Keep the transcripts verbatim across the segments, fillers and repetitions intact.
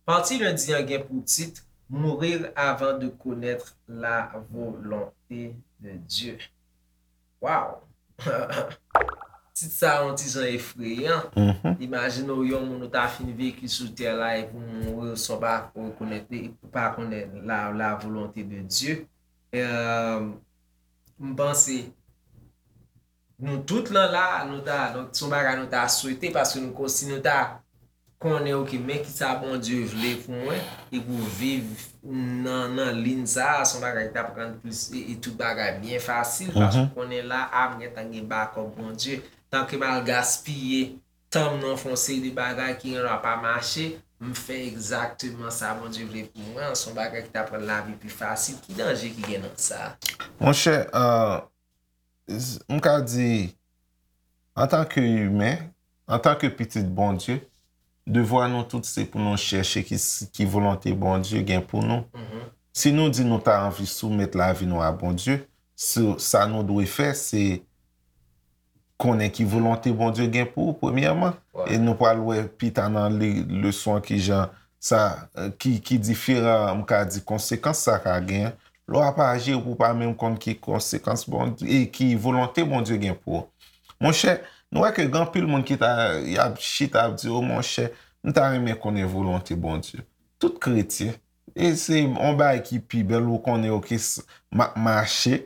Pati lendi an gen pou tit Mourir avant de connaître la volonté de Dieu. Waw! Tit sa a yon ti jan efreyan. Imajine w yon moun ou ta fin veki sou tè la epi w mouri san w pa rekonèt li, pa konnen la, la volonté de Dieu. Euh, m panse nou tout lan la, nou ta, donk, se yon bagay nou ta swete, paske nou, si nou ta konnen, oke, men kisa Bondye vle pou mwen, epi w viv nan, nan liy sa a, se yon bagay ki t ap rann plis, e, e tout bagay byen fasil, paske w konnen la, a, m gentan gen bakòp Bondye. Tanke m al gaspiye tan m nan fè yon seri de bagay ki gen dwa pa mache, m fè egzakteman sa Bondye vle pou mwen, se yon bagay ki t ap rann lavi pi fasil. Ki danje ki gen nan sa? Monchè, euh, m ka di, antanke imen, antanke pitit Bondye, devwa nou tout se pou nou chèche ki, ki volonte Bondye gen pou nou. Si nou di nou ta anvi soumèt lavi nou a Bondye, sa, sa nou dwe fè, se konnen ki volonte Bondye gen pou ou, premyèman. E nou pral wè pita nan li, leson an, ki jan sa, ki, ki diferan, m ka di, konsekans sa ka gen. Lè w ap aji, ou pa menm konn ki konsekans Bondye, e ki volonte Bondye gen pou ou. Monchè, nou wè ke gen anpil moun ki ta, y ap chita, ap di, "O monchè, m ta renmen konnen volonte Bondye." Tout kretyen, e se yon bagay ki pi bèl, ou konnen, oke, m ap mache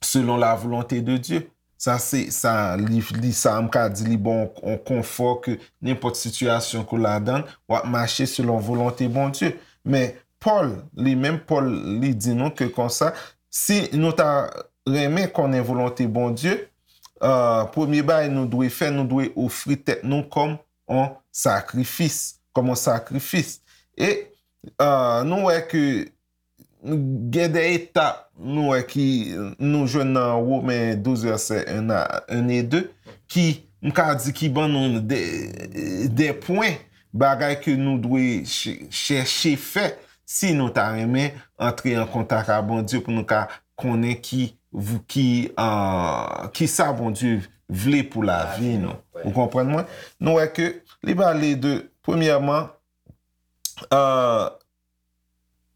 selon la volonte de Dye. Sa se, sa, li, li, sa m ka di, li ba w yon konfò ke nenpòt sitiyasyon ke w ladan, w ap mache selon volonte Bondye. Men Pòl, li menm, Pòl, li di nou ke konsa, si nou ta renmen konnen volonte Bondye, euh, premye bagay nou dwe fè, nou dwe ofri tèt nou kòm yon sakrifis, kòm yon sakrifis. E, euh, nou wè ke gen de etap nou wè ki nou jwenn nan Women douz vèsè en a, en e de, ki, m ka di, ki ban nou de, de pwen, bagay ke nou dwe ch-, chèche fè si nou ta renmen antre an kontak ak Bondye, pou nou ka konnen ki, ki, euh, ki sa Bondye vle pou lavi nou. Ou konprann mwen? Nou wè ke li pale de, premyèman, euh,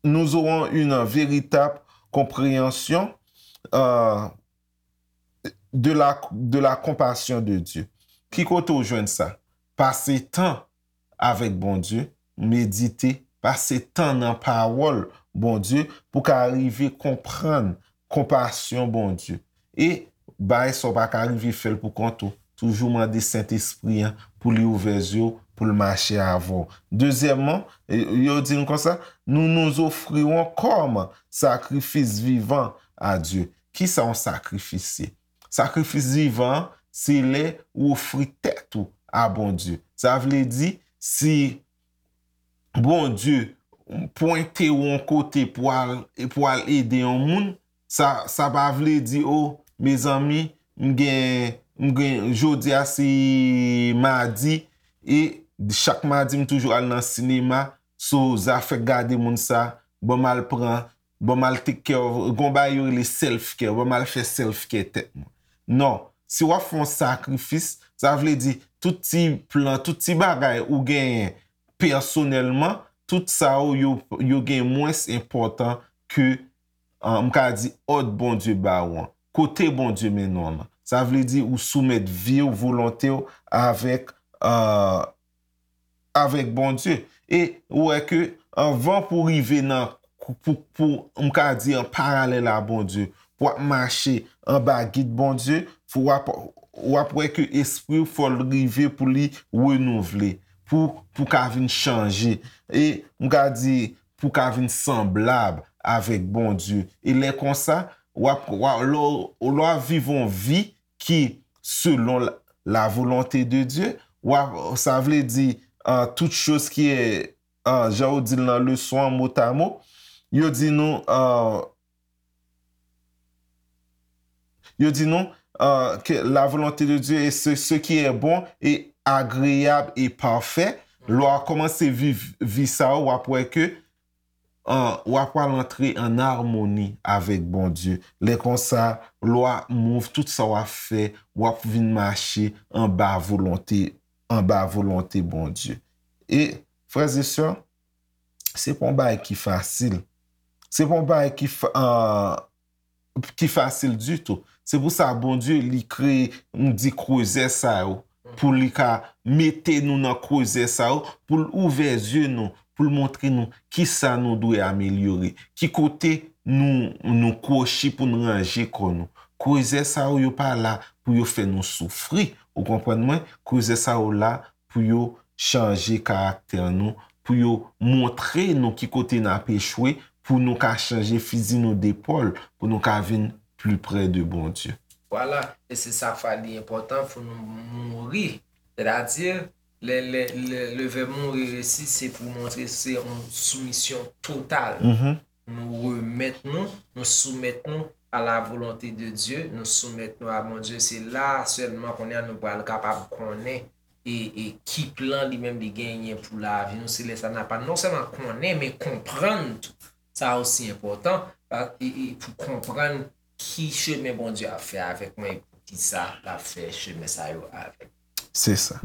nous aurons une véritable compréhension, euh, de la, de la compassion de Dieu. Ki kote w jwenn sa? Pase tan avèk Bondye, medite, pase tan nan pawòl Bondye pou ka rive konprann konpasyon Bondye. E bagay sa w pa ka rive fè l pou kont ou. Toujou mande Sentespri an pou li ouvè zye w, pou l mache avè w. Dezyèmman, e, yo di nou konsa, nous nous offrirons comme sacrifice vivant à Dieu. Kisa yon sakrifis ye? Sakrifis vivan an, se lè ou ofri tèt ou a Bondye. Sa vle di, si Bondye pwente w yon kote pou al, pou al ede yon moun, sa, sa pa vle di, o, mezanmi, m gen, m gen, jodi a se madi, e chak madi m toujou al nan sinema, so, zafè gade moun sa, ban m al pran, ban m al take care of, gon bagay yo rele self care, ban m al fè self care tèt mwen. Non, si w ap fè yon sakrifis, sa vle di tout ti plan, tout ti bagay ou genyen pèsonèlman, tout sa yo, yo, yo gen mwens enpòtan ke, ah, m ka di, òd Bondye ba w an. Kote Bondye mennen w lan. Sa vle di ou soumèt vi w, volonte w avèk, ah, avèk Bondye. E ou wè ke anvan pou rive nan, pou, pou, m ka di, an paralèl a Bondye, pou w ap mache anba gid Bondye, fò w ap, w ap wè ke espri w fò l rive pou li renouvle, pou, pou ka vin chanje. E m ka di, pou ka vin sanblab avèk Bondye. E lè konsa, w ap, w ap, lè w, lè w ap viv yon vi ki selon la, la volonté de Dieu, w ap, sa vle di, euh, toute chose qui est, euh, jan yo di l nan leson an, mot à mot, yo di nou, euh, yo di nou, euh, que la volonté de Dieu est ce, ce qui est bon et agréable et parfait. Lè w kòmanse viv vi sa yo, w ap wè ke an, w ap pral antre an amoni avèk Bondye. Lè konsa, lè w ap move, tout sa w ap fè, w ap vin mache anba volonte, anba volonte Bondye. E, frè e sè, se pa yon bagay ki fasil. Se pa yon bagay ki, fa- an, ki fasil ditou. Se pou sa Bondye li kreye, m di, krezè sa yo, pou li ka mete nou nan krezè sa yo, pou l ouvè zye nou, pou l montre nou kisa nou dwe amelyore, ki kote nou, nou kwochi pou n ranje kò nou. Krezè sa yo, yo pa la pou yo fè nou soufri. Ou konprann mwen? Krezè sa yo la pou yo chanje karaktè nou, pou yo montre nou ki kote n ap echwe, pou nou ka chanje fizi nou depòl, pou nou ka vin pli pre de Bondye. Vwala, e se sa k fè li enpòtan pou nou mouri. Sètadi, le, le, le, le vèb mouri isi, se pou montre se yon soumisyon total. Nou remèt nou, nou soumèt nou a la volonte de Dye, nou soumèt nou a Bondye. Se la sèlman kounye a nou pral kapab konnen e, e ki plan li menm li genyen pou lavi nou. Se lè sa n ap non sèlman konnen, men konprann tou. Sa osi enpòtan, e, e pou konprann ki chemen Bondye ap fè avèk mwen e poukisa l ap fè chemen sa yo avèk mwen. Se sa.